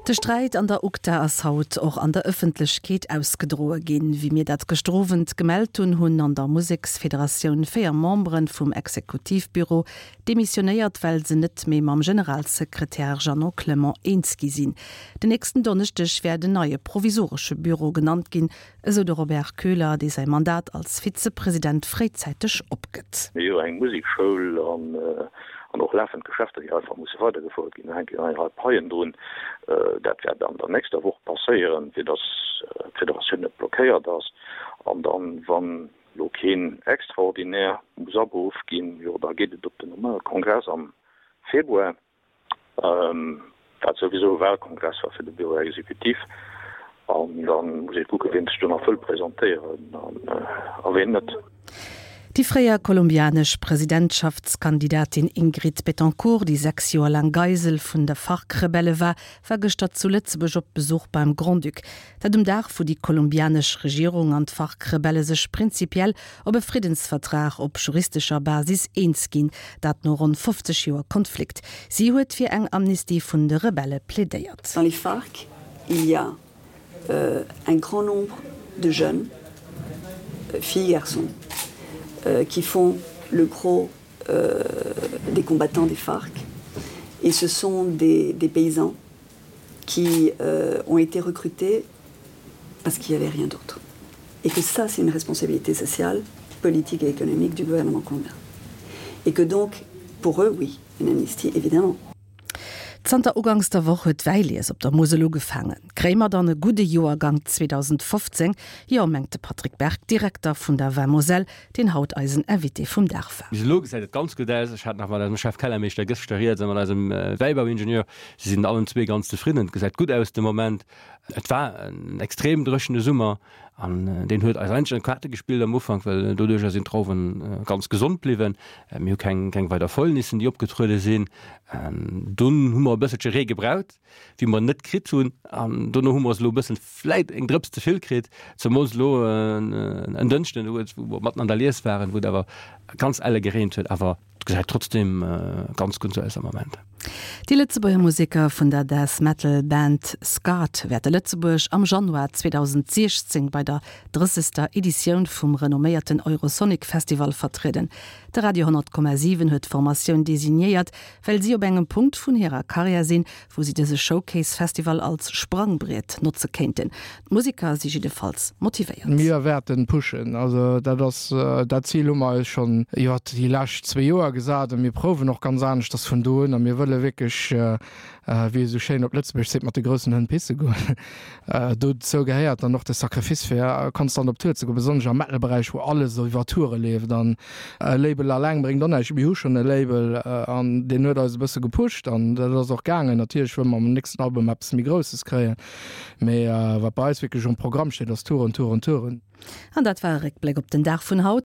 De Sträit an der UGDA ass haut och an der Ëffentlechkeet ausgedroe ginn. Wéi mir dat gëschter Owend gemellt hunn, hunn an der Museksfederatioun 4 Membere vum Exekutivbüro demissionéiert, well se net méi mam Generalsekretär Jeannot Clement eens gi sinn. Den nächsten Donneschdeg wäert en neie provisoresche Büro genannt ginn, esou de Robert Köhler, dee säi Mandat als Vizepresident fréizäiteg opgëtt. Mir hu jo eng Musekschoul an och lafend Geschäfter, déi einfach musse weidergefouert ginn. Do hänken eng Rei Paien drun. Dat wäert an der nächster Woch passéieren, fir datt d'Federatioun net blockéiert ass. An dann, wann elo keen Extraordinaire muss aberuff ginn, jo da geet et op den normale Kongress am Februar. Wat souwisou e Wahlkongress war fir de Bureau exécutif. An da muss ee kucken, wien sech do nach wëll presentéieren a wien net. Déi fréier kolumbianesch Presidentschaftskandidatin Ingrid Betancourt, déi 6 Joer laang Geisel vun de FARC-Rebelle war, war gëschter zu Lëtzebuerg op Besuch beim Grand-Duc. Dat um Dag, wou déi kolumbianesch Regierung an d'FARC-Rebelle sech prinzipiell op e Friddensvertrag op juristescher Basis eens ginn, dat no ronn 50 Joer Konflikt. Si huet fir eng Amnistie vun de Rebelle plädéiert. Dans les FARC, il y a un grand nombre de jeunes, filles, garçons, qui font le gros des combattants des FARC et ce sont des, des paysans qui euh, ont été recrutés parce qu'il n'y avait rien d'autre. Et que ça, c'est une responsabilité sociale, politique et économique du gouvernement colombien. Et que donc, pour eux, oui, une amnistie, évidemment. Zanter uganks der Woch huet d'Wäilies op der Musel ugefaangen. Kréie mer dann e gudde Joergank 2015? Jo, mengt de Patrick Berg, Direkter vun der Vin Moselle, deen haut eisen Invité vum Dag war. Bis elo gesäit et ganz gutt aus. Ech hat nach mat eisem Chef Kellermeeschter gëschter rieds a mat eisem Wäibauingenieur. Si sinn allen zwee ganz zefridden. Et gesäit gutt aus de Moment. Et war en extrem dréchene Summer an deen huet eis eigentlech an d'Kaarte gespillt am Ufank, well doduercher sinn d'Drauwen ganz gesond bliwwen. Mir hu keng keng weider Fäulnissen, déi opgetruede sinn. Dunn hu mer e bësselche Ree gebraucht, wéi mer net kritt hunn an dono hu mer se elo e bëssen vläit eng Drëps ze vill kritt, zemools elo en Dënschden, wou mer matten an der Lies waren, wou et awer ganz elle gereent huet. Awer et gesäit trotzdem ganz gutt aus am Moment. Déi Lëtzebuerger Museker vun der Death Metal Band Scarred wäerte Lëtzebuerg am Januar 2016 bei der drëssegster Editioun vum renomméierten Eurosonic Festival vertrieden. De Radio 10,7 huet d'Formatioun designéiert, well si op engem Punkt vun hirer Karriär sinn, wou si dëse Showcase Festival als Sprangbriet notze kéinten. D'Museker si jiddefalls motivéiert. Mir wäerten pushen. Also dat ass, dat Zil hu mer eis schonn iwwer déi lescht zwee Joer gesat a mir prouwen och ganz aneschters vun do un a mir wëlle wierklech, wéi ee sou schéin op Lëtzebuergesch seet, mat de groussen Hënn pisse goen. Dozou gehéiert dann och de Sacrifice fir konstant op Tour ze goen, besonnesch am Metal-Beräich, wou alles iwwer Toure leeft an E Label alleng bréngt och näischt. Mir hu schonn e Label an deen huet eis e bësse gepusht an dat ass och gaangen. Natierlech wëlle mer mam nächsten Album eppes méi Grousses kréien, mee wat bei eis wierklech um Programm steet, ass Touren, Touren, Touren. An dat war e Réckbléck op den Dag vun haut.